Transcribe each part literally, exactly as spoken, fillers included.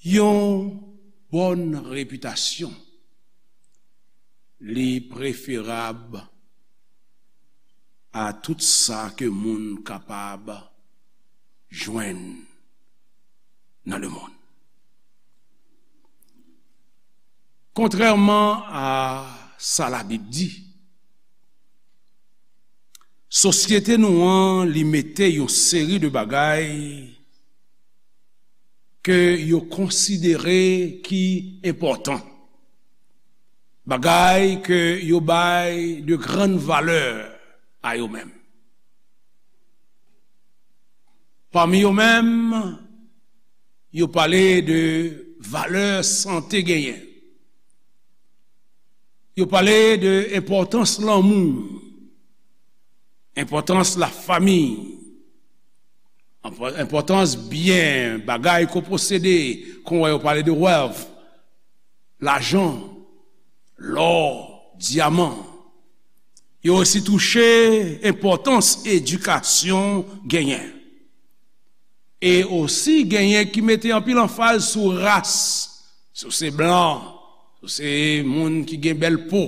Yon bòn repitasyon, li preferab a tout sa ke moun kapab jwenn nan lemonn. Kontrèman a sa Labib di, sosyete nou an, li mete yon seri de bagay ke yo konsidere ki enpòtan, bagay ke yo bay de grann valè a yo menm. Pami yo menm, yo pale de valè sante genyen. Yo pale de enpòtans lanmou, enpòtans lafanmi, enpò-, enpòtans byen, bagay ke w posede, kon w wè yo pale de wealth, lajan, lò, dyaman. Yo osi touche enpòtans edikasyon genyen. E osi genyen ki mete anpil anfaz sou ras, si w se blan, si w se moun ki gen bèl po,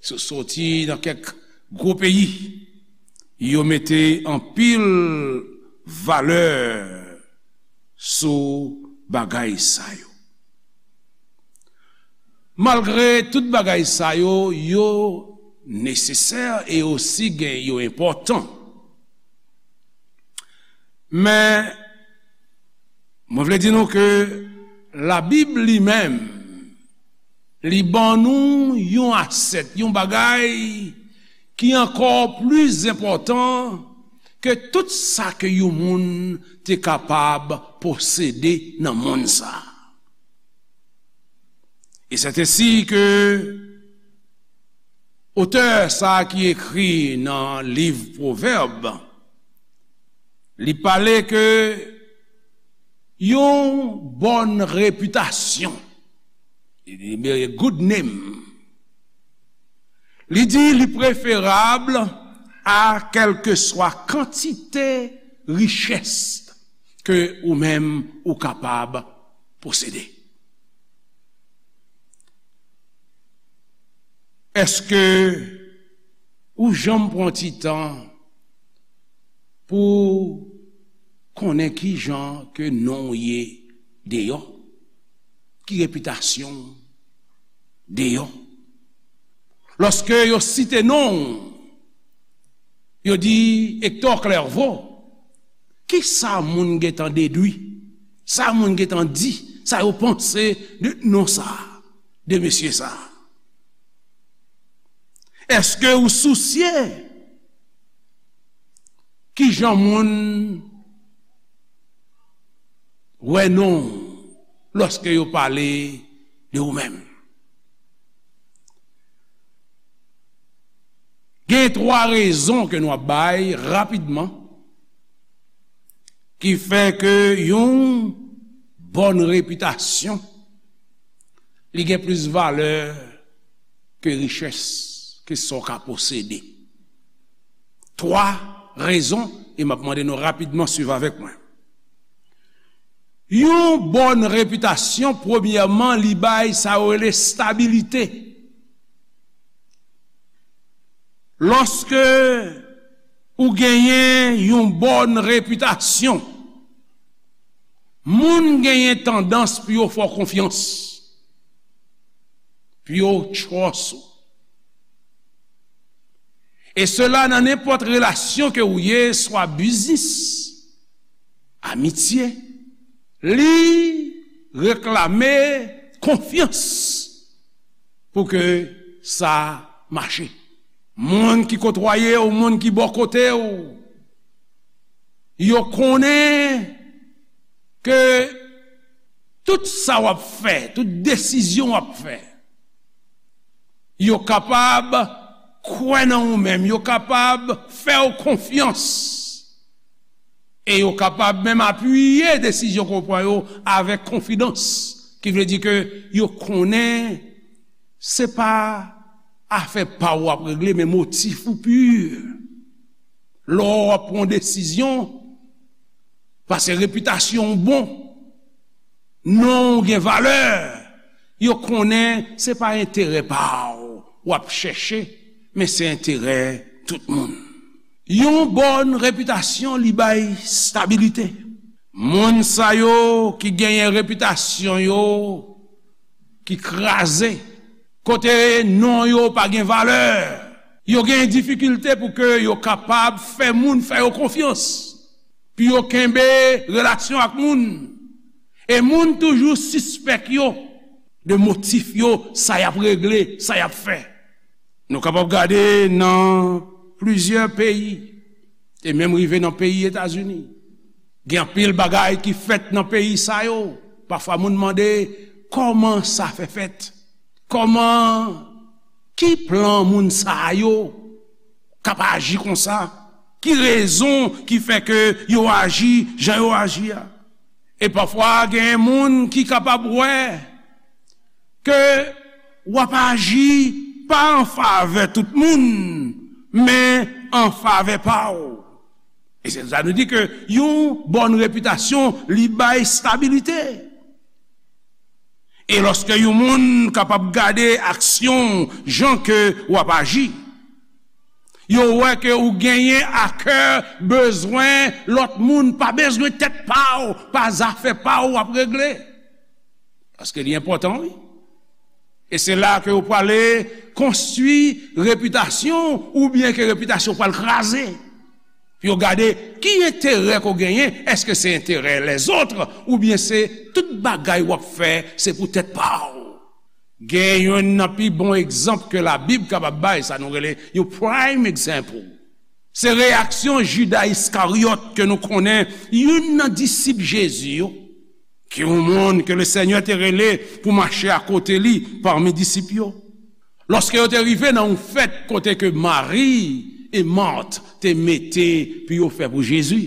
si w soti nan kèk gwo peyi. Yo mete anpil valè sou bagay sa yo. Malgre tout bagay sa yo, yo nesesè e osi gen, yo enpòtan. Men, mwen vle di nou ke Labib li menm, li ban nou yon asèt, yon bagay ki ankò plis enpòtan ke tout sa ke yon moun te kapab posede nan monn sa a. E sètensi ke otè sa a ki ekri nan liv Pwovèb, li pale ke yon bòn repitasyon, a good name, li di li preferab a kèlkeswa kantite richès ke ou menm ou kapab posede. Èske ou janm pran ti tan pou konnen ki jan ke non w ye deyò? Ki repitasyon w deyò? Lòske yo site non w, yo di Hector Clerveau, ki sa moun gentan dedwi? Sa moun gentan di? Sa yo panse de non sa a, de mesye sa a? Èske ou sousye ki jan moun wè non w lòske yo pale de ou menm? Gen twa rezon ke nou ap bay rapidman ki fè ke yon bòn repitasyon, li gen plis valè ke richès, ke sa w ka posede. Twa rezon, e m ap mande nou rapidman swiv avèk mwen. Yon bòn repitasyon, premyèman, li bay sa yo rele stabilite. Lòske ou genyen yon bòn repitasyon, moun genyen tandans pou yo fè w konfyans, pou yo trust ou. E sela nan nenpòt relasyon ke ou ye, swa biznis, amitye, li reklame konfyans pou ke sa mache. Moun ki kotwaye w, moun ki bò kote w, yo konnen ke tout sa w ap fè, tout desizyon w ap fè, yo kapab kwè nan ou menm, yo kapab fè w konfyans, e yo kapab menm apiye desizyon ke w pran yo avèk konfidans, ki vle di ke yo konnen se pa afè pa w w ap regle, men motif ou pi. Lè w ap pran desizyon, paske repitasyon w bon, non w gen valè, yo konnen se pa enterè pa w w ap chèche, men se enterè tout moun. Yon bòn repitasyon, li bay stabilite. Moun sa yo ki genyen repitasyon yo ki kraze, kote non yo pa gen valè, yo gen difikilte pou ke yo kapab fè moun fè yo konfyans, pou yo kenbe relasyon ak moun. E moun toujou sispèk yo de motif yo, sa y ap regle, sa y ap fè. Nou kapab gade nan plizyè peyi, e menm rive nan peyi Etazini. Gen anpil bagay ki fèt nan peyi sa yo. Pafwa moun mande, kòman sa fè fèt? Kòman, ki plan moun sa yo k ap aji konsa? Ki rezon ki fè ke yo aji jan yo aji a? E pafwa gen moun ki kapab wè ke w ap aji pa an favè tout moun, men an favè pa w. E se sa nou di ke yon bòn repitasyon, li bay stabilite. E lòske yon moun kapab gade aksyon w, jan ke w ap aji, yo wè ke ou genyen a kè bezwen lòt moun, pa bezwen tèt pa w, pa zafè pa w w ap regle. Paske li enpòtan, wi. E se la ke ou prale konstwi repitasyon, oubyen ke repitasyon pral kraze. Pou yo gade ki enterè ke w genyen, èske se enterè lèzòt, oubyen se tout bagay w ap fè, se pou tèt pa w. Gen youn nan pi bon egzanp ke Labib kapab bay, sa nou rele yon prime example. Se reyaksyon Jida Iskaryòt ke nou konnen, youn nan disip Jezi yo, ki yon moun ke Lesenyè te rele pou mache akote li pami disip yo. Lòske yo te rive nan yon fèt kote ke Mari e Mat te mete pou yo fè pou Jezi,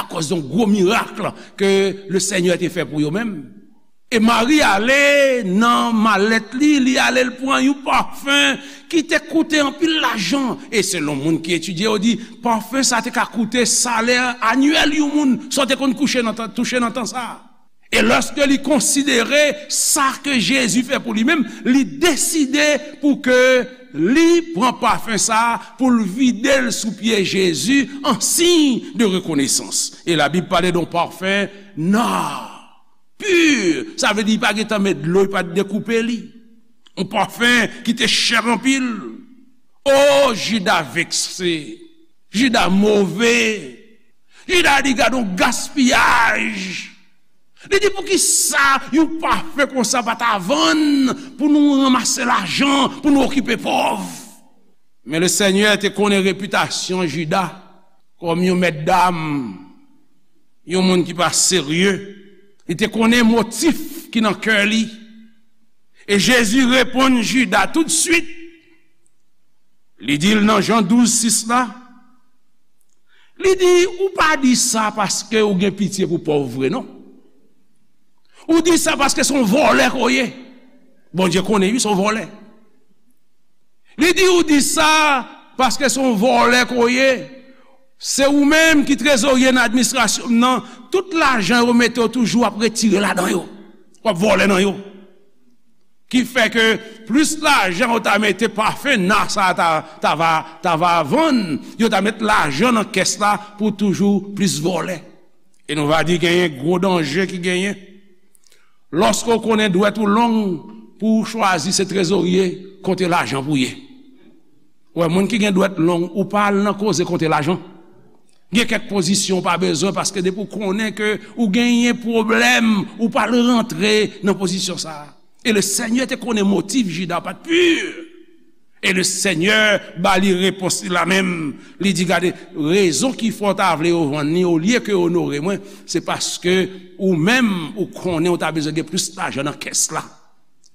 akòz yon gwo mirak ke Lesenyè te fè pou yo menm. E Mari ale nan malèt li, li ale l pran yon pafen ki te koute anpil lajan. E selon moun ki etidye, yo di, pafen sa te ka koute salè anyèl yon moun, sa w te konn kouche nan tan, touche nan tan sa a. E lòske li konsidere sa ke Jezi fè pou li menm, li deside pou ke li pran pafen sa a, pou l vide l sou pye Jezi an siy de rekonesans. E Labib pale de yon pafen nò. Pi, sa vle di li pa gentan met dlo, li pa t dekoupe li. Yon pafen ki te chè anpil. O, Jida vekse. Jida move. Jida di, gade yon gaspiyaj. Li di, poukisa yon pafen konsa pa ta vann pou nou ranmase lajan, pou nou okipe pòv? Men Lesenyè te konnen repitasyon Jida kòm yon mèt dam, yon moun ki pa serye. Li te konnen motif ki nan kè li. E Jezi reponn Jida toutswit. Li di l nan Jan douz sis la, li di, ou pa di sa paske ou gen pitye pou pòv vre, non. Ou di sa paske se yon vòlè ke w ye. Bondye konnen, wi, se yon vòlè. Li di, ou di sa paske se yon vòlè ke w ye. Se ou menm ki trezorye nan administrasyon m nan. Tout lajan yo mete w toujou ap retire ladan yo. W ap vòlè nan yo. Ki fè ke plis lajan yo ta mete pafen nò sa a ta, ta va, ta va vann, yo ta met lajan nan kès la pou toujou plis vòlè. E nou va di genyen gwo danje ki genyen. Lòske w konnen dwèt ou long, pou w chwazi se trezorye konte lajan pou w ye. Ou wè, moun ki gen dwèt long, ou pa al nan koze konte lajan. Gen kèk pozisyon ou pa bezwen, paske depi w konnen ke ou genyen pwoblèm, ou pa al rantre nan pozisyon sa a. E Lesenyè te konnen motif Jida pa t pi. E Lesenyè ba li repons li la menm. Li di, gade, rezon ki fè w ta vle yo vann li olye ke onore mwen, se paske ou menm, ou konnen ou ta bezwen gen plis lajan nan kès la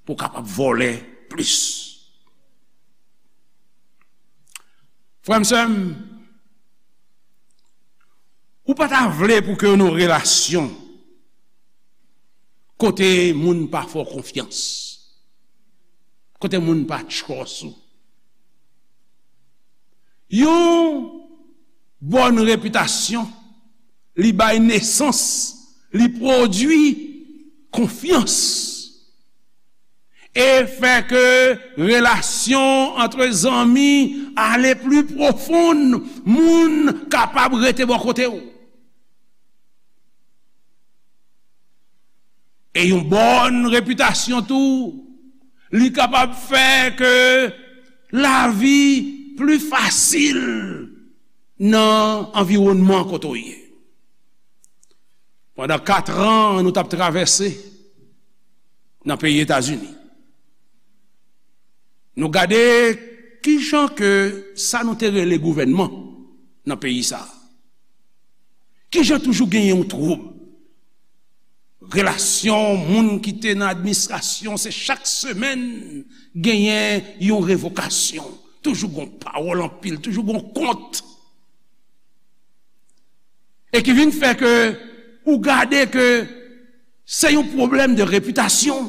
pou w kapab vòlè plis. Frè m, sè m, ou pa ta vle pou ke yon relasyon kote moun pa fè w konfyans, kote moun pa trust ou. Yon bòn repitasyon, li bay nesans, li pwodui konfyans e fè ke relasyon ant zanmi ale pli pwofon, moun kapab rete bò kote w. E yon bòn repitasyon tou, li kapab fè ke lavi pli fasil nan anviwònman kote w ye. Pandan kat an, nou t ap travèse nan peyi Etazini. Nou gade kijan ke sa nou te rele gouvènman nan peyi sa a. Kijan toujou genyen yon twoub. Relasyon moun ki te nan administrasyon, se chak semèn genyen yon revokasyon. Toujou gon pawòl anpil, toujou gon kont. E ki vin fè ke ou gade ke se yon pwoblèm de repitasyon.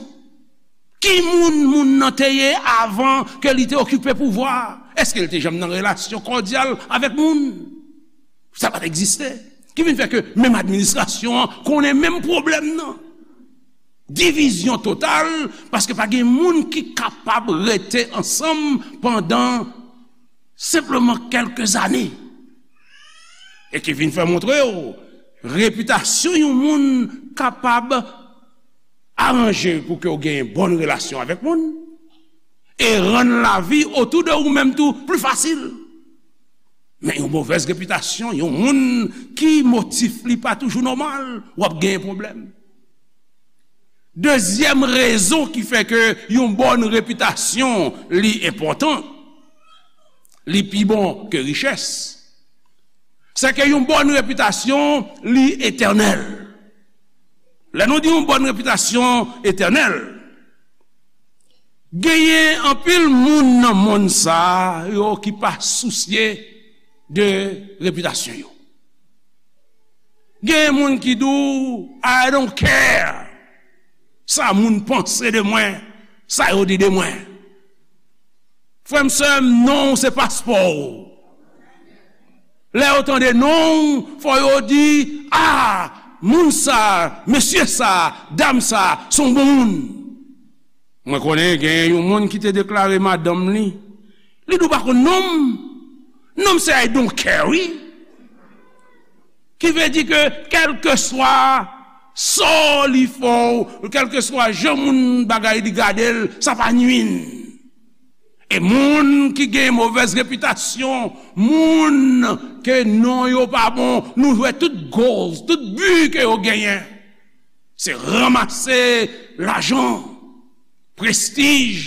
Ki moun moun nan te ye avan ke li te okipe pouvwa a? Èske l te janm nan relasyon kòdyal avèk moun? Sa pa t egziste. Ki vin fè ke menm administrasyon an konnen menm pwoblèm nan. Divizyon total, paske pa gen moun ki kapab rete ansanm pandan senpleman kèlke zane. E ki vin fè montre w, repitasyon yon moun kapab aranje pou ke w gen bòn relasyon avèk moun e rann lavi otou de ou menm tou pli fasil. Men yon movèz repitasyon, yon moun ki motif li pa toujou nòmal, w ap gen pwoblèm. Dezyèm rezon ki fè ke yon bòn repitasyon li enpòtan, li pi bon ke richès, se ke yon bòn repitasyon li etènèl. Lè nou di yon bòn repitasyon etènèl, genyen anpil moun nan monn sa a yo ki pa sousye de repitasyon yo. Gen moun ki di w, "I don't care sa moun panse de mwen, sa yo di de mwen." Frè m, sè m, non w se paspò w. Lè yo tande non w, fò yo di, "A, moun sa, mesye sa, dam sa, se yon bon moun." Mwen konnen gen yon moun ki te deklare madanm li, li di w pa konn non m. Non m se I don't care, wi. Ki vle di ke kèlkeswa sò li fè w, kèlkeswa jan moun bagay li gade l, sa pa nwi n. E moun ki gen movèz repitasyon, moun ke non yo pa bon, nou wè tout goals, tout bi ke yo genyen, se ranmase lajan, prestij,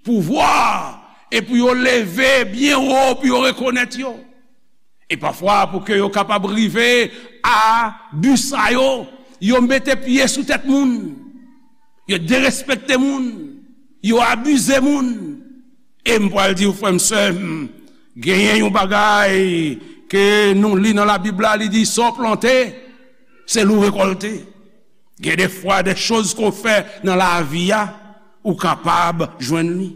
pouvwa, e pou yo leve byen wo, pou yo rekonèt yo. E pafwa, pou ke yo kapab rive a bi sa yo, yo mete pye sou tèt moun, yo derespekte moun, yo abize moun. E m pral di w, frè m, sè m, genyen yon bagay ke nou li nan Labib la, li di, "Sa w plante, se li w rekòlte." Gen de fwa, de choz ke w fè nan lavi a, ou kapab jwenn li.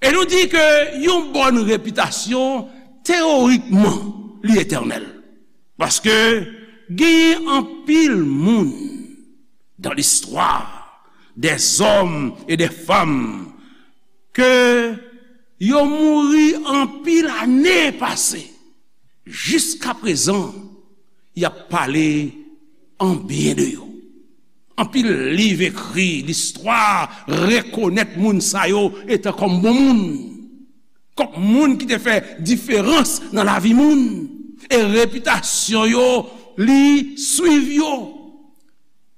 E nou di ke yon bòn repitasyon, teyorikman, li etènèl. Paske genyen anpil moun dans l'histoire, des hommes et des femmes, ke yo mouri anpil ane pase. Jiskaprezan, y ap pale an byen de yo. Anpil liv ekri, listwa rekonèt moun sa yo etan kòm bon moun, kòm moun ki te fè diferans nan lavi moun, e repitasyon yo, li swiv yo,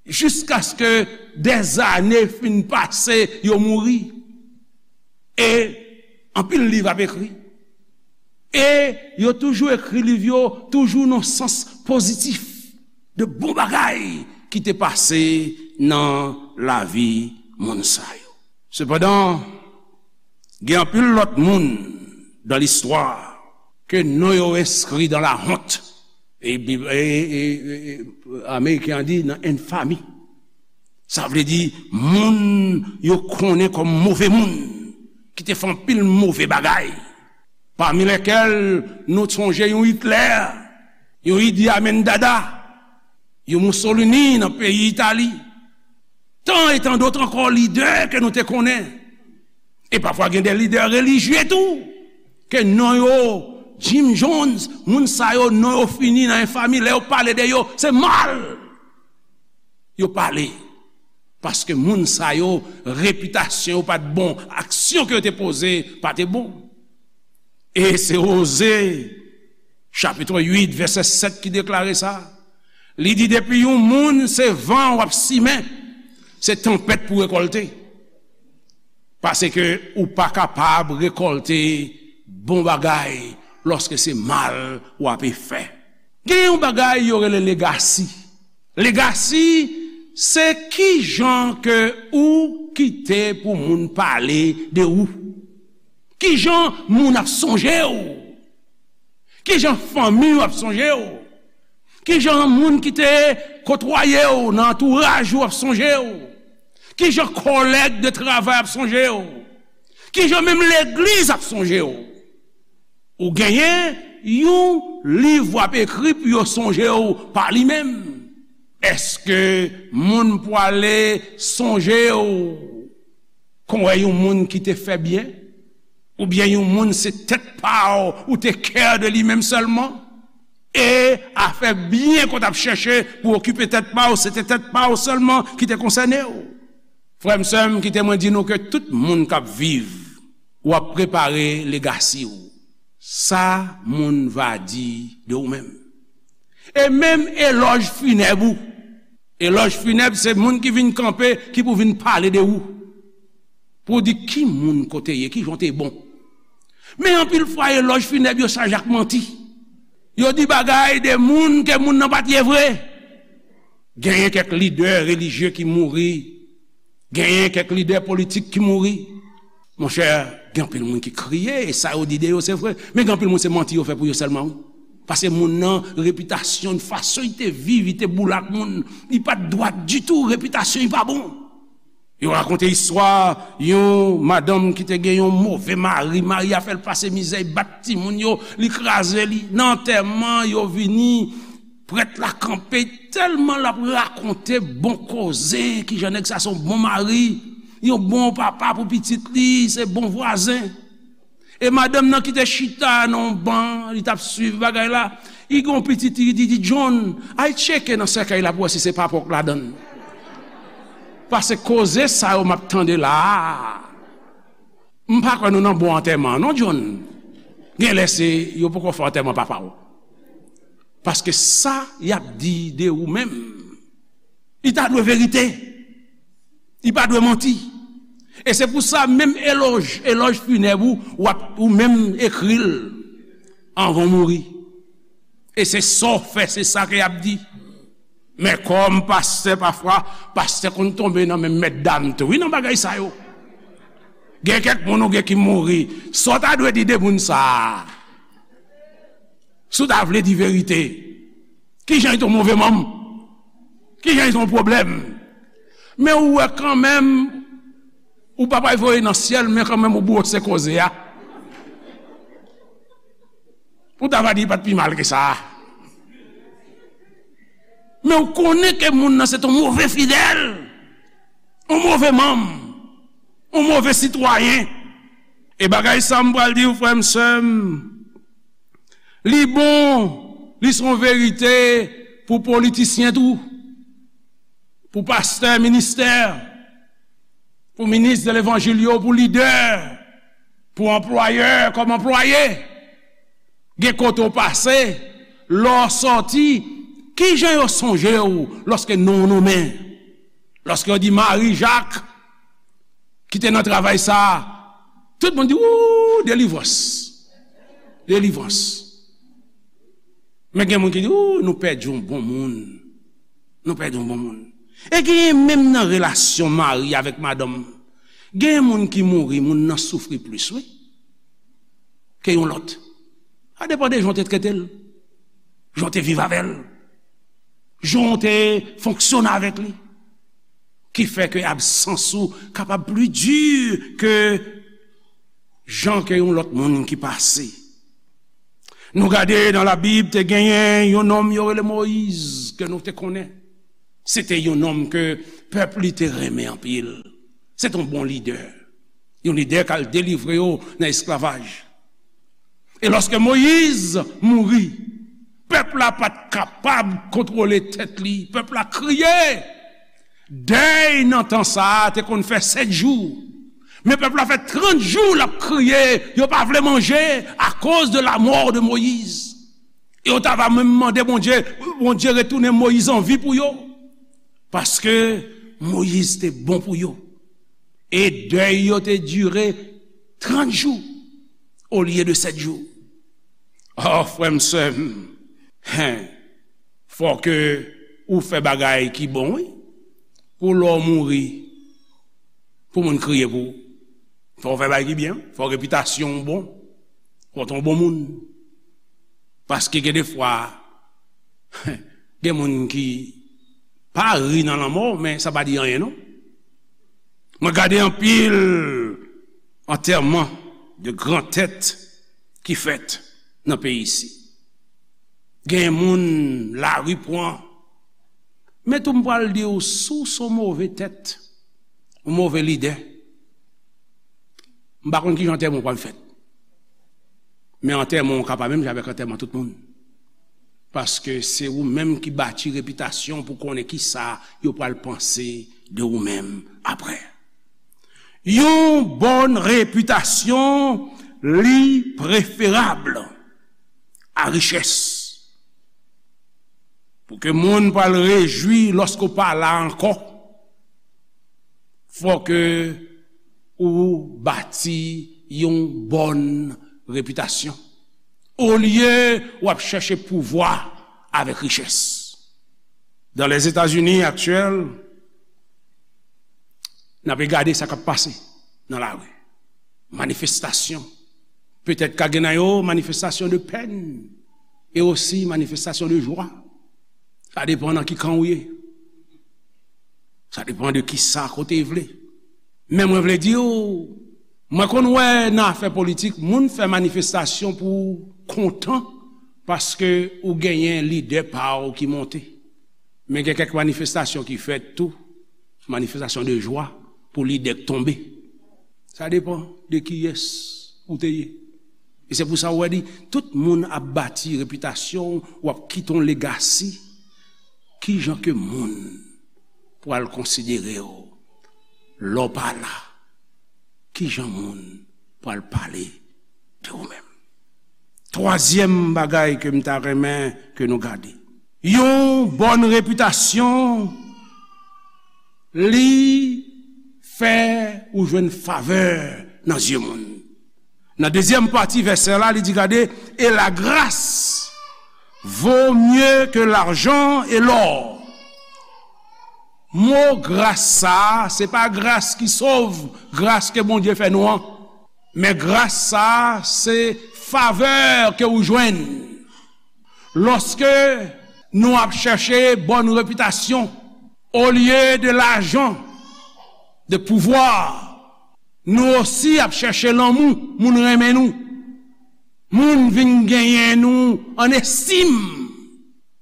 jiskaske dèzane fin pase, yo mouri. E anpil liv ap ekri. E yo toujou ekri liv yo, toujou nan sans pozitif, de bon bagay ki te pase nan lavi moun sa yo. Sepandan, gen anpil lòt moun dans l'histoire ke non yo enskri dans la honte. E, e, e, e, e, Ameriken an di nan enfami. Sa vle di moun yo konnen kòm move moun, ki te fè anpil move bagay. Pami lèkèl nou sonje yon Hitler, yon Idi Amin Dada, yon Mussolini nan peyi Itali. Tan e tan dòt ankò lidè ke nou te konnen. E pafwa gen de lidè relijye tou, ke non yo, Jim Jones, moun sa yo, non yo fini nan enfami, lè yo pale de yo, se mal yo pale. Paske moun sa yo, repitasyon yo pa t bon, aksyon ke yo te poze pa te bon. E se Oze, chapit uit, vèsè sèt ki deklare sa. Li di, depi yon moun se van w ap simen, se tanpèt pou rekòlte. Paske ou pa kapab rekòlte bon bagay lòske se mal w ape fè. Gen yon bagay yo rele legasi. Legasi, se kijan ke ou kite pou moun pale de ou. Kijan moun ap sonje w. Kijan fanmi w ap sonje w. Kijan moun ki te kotwaye w nan antouraj ou ap sonje w. Kijan kòlèg de travay ap sonje w. Kijan menm legliz ap sonje w. Ou genyen yon liv w ap ekri pou yo sonje w pa li menm. Èske moun pwale sonje w kon wè yon moun ki te fè byen? Oubyen yon moun se tèt pa w ou te kè de li menm sèlman? E afè byen ke w t ap chèche pou okipe tèt pa w, se te tèt pa w sèlman ki te konsène w. Frè m, sè m, kite mwen di nou ke tout moun k ap viv, w ap prepare legasi w. Sa moun va di de ou menm. E menm elòj finèb ou. Elòj finèb se moun ki vin kanpe, ki pou vin pale de ou. Pou di ki moun ke w te ye, kijan w te bon. Men anpil fwa elòj finèb yo chaje ak manti. Yo di bagay de moun ke moun nan pa t ye vre. Genyen kèk lidè relijye ki mouri. Genyen kèk lidè politik ki mouri. Monchè, gen anpil moun ki kriye, e sa yo di de yo se vre. Men gen anpil moun se manti yo fè pou yo sèlman, wi. Paske moun nan, repitasyon, fason li te viv, li te boule ak moun, li pa t dwat ditou, repitasyon li pa bon. Yo rakonte istwa yon madanm ki te gen yon move mari, mari a fè l pase mizè, li bat timoun yo, li kraze li. Nan antèman, yo vini, prèt la kanpe, tèlman l ap rakonte bon koze, kijan nèg sa se yon bon mari, yon bon papa pou pitit li, se bon vwazen. E madanm nan ki te chita nan yon ban, li t ap swiv bagay la, li gen yon pitit, li di, di, John, al tcheke nan sèkèy la pou wè si se pa pòk ladan l. Paske koze sa yo m ap tande la a, m pa kwè nou nan bon antèman, non, John. Genlè se yo poko fè antèman papa w. Paske sa y ap di de ou menm, li ta dwe verite. Li pa dwe manti. E se pou sa, menm elòj, elòj finèb ou, w ap, ou menm ekri l anvan w mouri. E se sa w fè, se sa ke y ap di. Men kòm pastè, pafwa, pastè konn tonbe nan men mètdam tou, wi, nan bagay sa yo. Gen kèk moun ou gen ki mouri. Sa w ta dwe di de moun sa a? Si w ta vle di verite, kijan li te yon move manm? Kijan li te yon pwoblèm? Men ou wè kanmenm, ou pa pral voye nan syèl, men kanmenm ou bwose koze a. Ou ta va di li pa t pi mal ke sa. Men ou konnen ke moun nan se t yon move fidèl, yon move manm, yon move sitwayen. E bagay sa m pral di w, frè m, sè m, li bon, li se yon verite pou politisyen tou, pou pastè, ministè, pou minis de levanjil yo, pou lidè, pou anplwayè kòm anplwaye. Gen kote w pase, lè w sòti, kijan yo sonje w lòske non w nonmen? Lòske yo di Mari Jak, ki te nan travay sa a, tout moun di, ou, delivrans. Delivrans. Men gen moun ki di, ou, nou pèdi yon bon moun. Nou pèdi yon bon moun. E genyen menm nan relasyon mari avèk madanm. Genyen moun ki mouri, moun nan soufri plis, wi, ke yon lòt. Sa depann de jan w te trete l, jan w te viv avè l, jan w te fonksyone avèk li, ki fè ke absans ou kapab pli di ke jan ke yon lòt moun ki pase. Nou gade nan Labib, te genyen yon nonm yo rele Moyiz, ke nou te konnen. Se te yon nonm ke pèp li te renmen anpil. Se te yon bon lidè. Yon lidè k al delivre yo nan esklavaj. E lòske Moyiz mouri, pèp la pa t kapab kontwole tèt li. Pèp la kriye. Dèy nan tan sa a te konn fè sèt jou. Men pèp la fè trant jou l ap kriye, yo pa vle manje akoz de la mort de Moïse. E yo ta va menm mande Bondye, Bondye retounen Moyiz an vi pou yo. Paske Moyiz te bon pou yo. E dèy yo te dire trant jou olye de sèt jou. O, frè m, sè m, hen, fò ke ou fè bagay ki bon, wi. Pou lè w mouri, pou moun kriye pou ou. Fò w fè bagay ki byen, fò repitasyon w bon. Fò w te yon bon moun. Paske gen defwa, gen moun ki pa ri nan lanmò, men sa pa di anyen, non. Mwen gade anpil antèman de gran tèt ki fèt nan peyi isi. Gen moun lari pran. Men tou m pral di w, si w se yon move tèt, yon move lidè, m pa konn kijan antèman w pral fèt. Men antèman w ka pa menm jan avèk antèman tout moun. Paske se ou menm ki bati repitasyon pou konnen kisa yo pral panse de ou menm apre. Yon bòn repitasyon li preferab a richès. Pou ke moun pral rejwi lòske w pa la ankò, fò ke ou bati yon bòn repitasyon. Olye w ap chèche pouvwa avèk richès. Dan Lèzetazini aktyèl, n ap gade sa k ap pase nan lari. Manifestasyon. Petèt ka gen nan yo manifestasyon de pèn e osi manifestasyon de jwa. Sa depann nan ki kan ou ye. Sa depann de kisa kote w vle. Men mwen vle di w, mwen konn wè nan afè politik, moun fè manifestasyon pou kontan paske ou genyen lidè pa w ki monte. Men gen kèk manifestasyon ki fèt tou, manifestasyon de jwa pou lidè k tonbe. Sa depann de kiyès ou te ye. E se pou sa w wè di, tout moun ap bati repitasyon w, w ap kite yon legasi. Kijan ke moun pral konsidere w lè w pa la? Kijan moun pral pale de ou menm? Twazyèm bagay ke m ta renmen ke nou gade. Yon bòn repitasyon, li fè ou jwenn favè nan zye moun. Nan dezyèm pati vèsè la, li di, gade, et la grâce vaut mieux que l'argent et l'or. Mo gras sa a, se pa gras ki sove, gras ke Bondye fè nou an. Men gras sa a, se favè ke ou jwenn. Lòske nou ap chèche bòn repitasyon, olye de lajan, de pouvwa, nou osi ap chèche lanmou, moun renmen nou. Moun vin genyen nou an estim.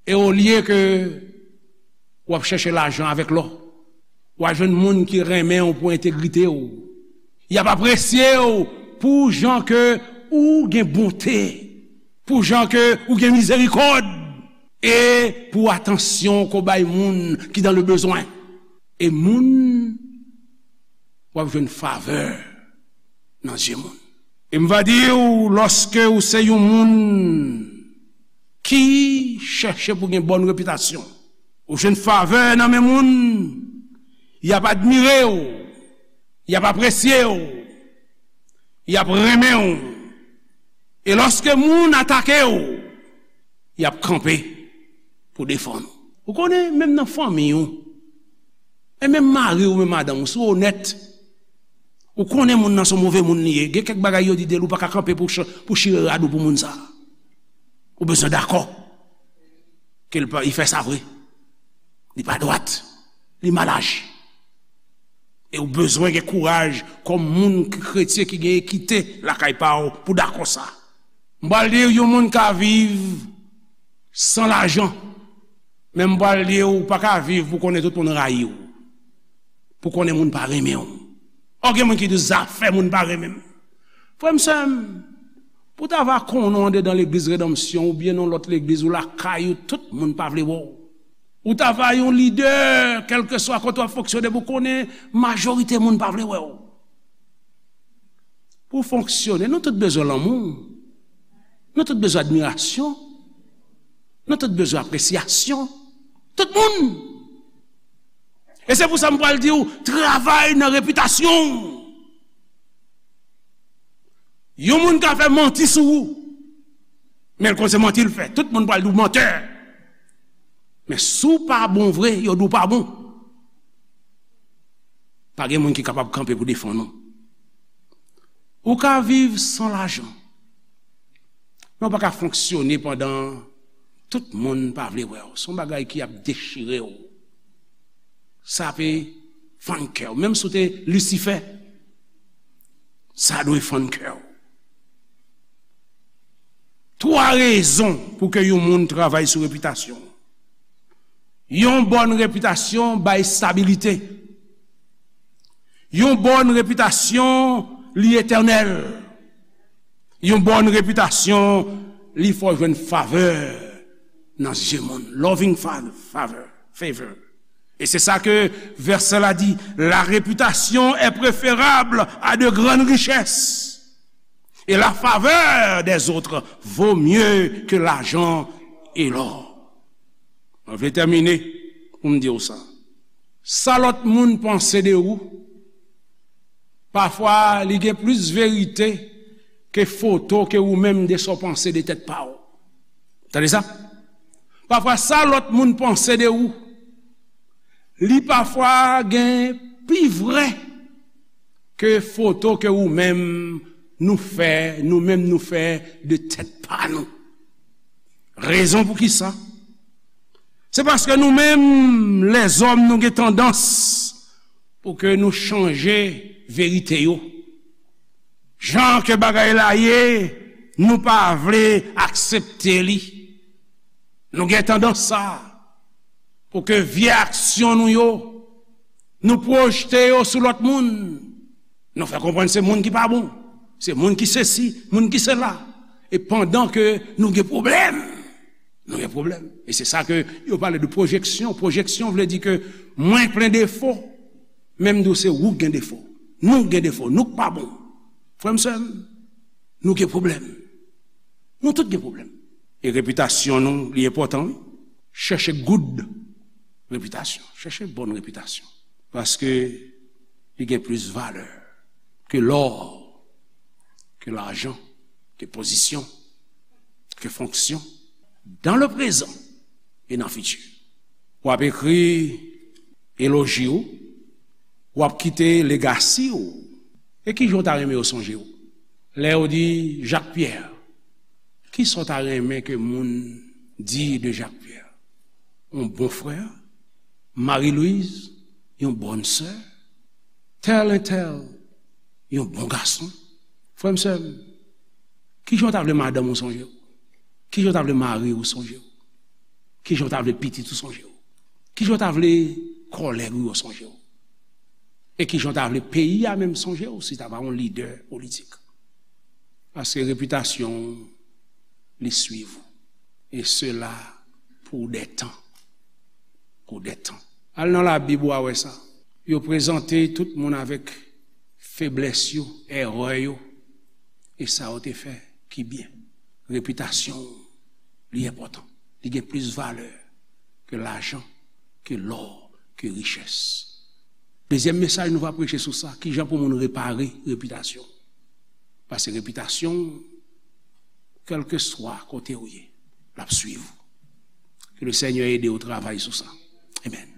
E olye ke w ap chèche lajan avèk lò, w a jwenn moun ki renmen w pou entegrite w. Y ap apresye w pou jan ke ou gen bonte, pou jan ke ou gen mizerikòd, e pou atansyon ke w bay moun ki dans le besoin. E moun, w ap jwenn favè nan zye moun. E m va di w, lòske ou se yon moun ki chèche pou gen bòn repitasyon, ou jwenn favè nan men moun, y ap admire w, y ap apresye w, y ap renmen w. E lòske moun atake w, y ap kanpe pou defann ou. Ou konnen, menm nan fanmi w, e menm mari w, menm madanm w, si w onèt, ou konnen moun nan se yon move moun li ye. Gen kèk bagay yo di de l, ou pa ka kanpe pou ch-, pou chire rad ou pou moun sa a. Ou bezwen dakò ke l pa, li fè sa vre. Li pa dwat. Li mal aji. E ou bezwen gen kouraj kòm moun ki kretyen ki gen ekite lakay pa w pou dakò sa. M pral di w, yon moun ka viv san lajan, Men m pral di w, ou pa ka viv pou konnen tout moun rayi w. Pou konnen moun pa renmen w. Ò, gen moun ki di, "Zafè moun pa renmen m." Frè m, sè m, pou w ta va konnen w andedan legliz Redanmsyon oubyen nan lòt legliz ou lakay ou, tout moun pa vle wè w. Ou ta va yon lidè, kèlkeswa kote w ap fonksyone, pou konnen majorite moun pa vle wè w. Pou w fonksyone, nou tout bezwen lanmou. Nou tout bezwen admirasyon. Nou tout bezwen apresyasyon. Tout moun. E se pou sa m pral di w, travay nan repitasyon w. Yon moun ka fè manti sou ou, men l konn se manti l fè. Tout moun pral di w mantè. Men si w pa bon vre, yo di w pa bon. Pa gen moun ki kapab kanpe pou defann ou. Ou ka viv san lajan, men w pa ka fonksyone pandan tout moun pa vle wè w. Se yon bagay ki ap dechire w. Sa pe fann kè w. Menm si w te Lisifè, sa dwe fann kè w. Twa rezon pou ke yon moun travay sou repitasyon. Yon bòn repitasyon bay estabilite. Yon bòn repitasyon, li etènèl. Yon bòn repitasyon, li fè w jwenn favè nan zye moun. Loving fa-, favor, favor. Et c'est ça que verset-là dit, la réputation est préférable à de grandes richesses. Et la faveur des autres vaut mieux que l'argent et l'or. Mwen vle tèmine pou m di w sa. Sa lòt moun panse de ou, pafwa li gen plis verite ke foto ke ou menm de sa w panse de tèt pa w. Tande sa? Pafwa sa lòt moun panse de ou, li pafwa gen pi vrè ke foto ke ou menm nou fè, nou menm nou fè de tèt pa nou. Rezon pou ki sa? Se paske nou menm, lèzòm, nou gen tandans pou ke nou chanje verite yo. Jan ke bagay la ye, nou pa vle aksepte li. Nou gen tandans sa, pou ke vye aksyon nou yo, nou pwojte yo sou lòt moun. Nou fè konprann se moun ki pa bon, se moun ki sesi, moun ki sela. E pandan ke nou gen pwoblèm, nou gen pwoblèm. E se sa ke yo pale de pwojeksyon. Pwojeksyon vle di ke mwen plen defo, men m di w se ou k gen defo. Nou gen defo, nou k pa bon. Frè m, sè m, nou gen pwoblèm. Nou tout gen pwoblèm. E repitasyon nou, li enpòtan, wi. Chèche good repitasyon. Chèche bòn repitasyon. Paske li gen plis valè ke lò, ke lajan, ke pozisyon, ke fonksyon, dans le présent et dans le futur. W ap ekri eloji w, w ap kite legasi w. E ki jan w ta renmen yo sonje w? Lè yo di Jacques Pierre, ki sa w ta renmen ke moun di de Jacques Pierre? Yon bon frè, Marie Louise, yon bòn sè, tèl entèl, yon bon gason. Frè m, sè m, ki jan w ta vle madanm ou sonje w? Ki jan w ta vle mari ou sonje w? Ki jan w ta vle pitit ou sonje w? Ki jan w ta vle kòlèg ou yo sonje w? E ki jan w ta vle peyi a menm sonje w si w ta pa yon lidè politik? Paske repitasyon w, li swiv ou. E sela pou de tan. Pou de tan. Al nan Labib, w a wè sa. Yo prezante tout moun avèk feblès yo, erè yo, e sa yo te fè ki byen. Repitasyon w, li enpòtan. Li gen plis valè ke lajan, ke lò, ke richès. Dezyèm mesaj nou va preche sou sa, ki jan pou moun repare repitasyon. Paske repitasyon, kèlkeswa kote w ye, l ap swiv ou. Ke le Senyè ede w travay sou sa. Amèn.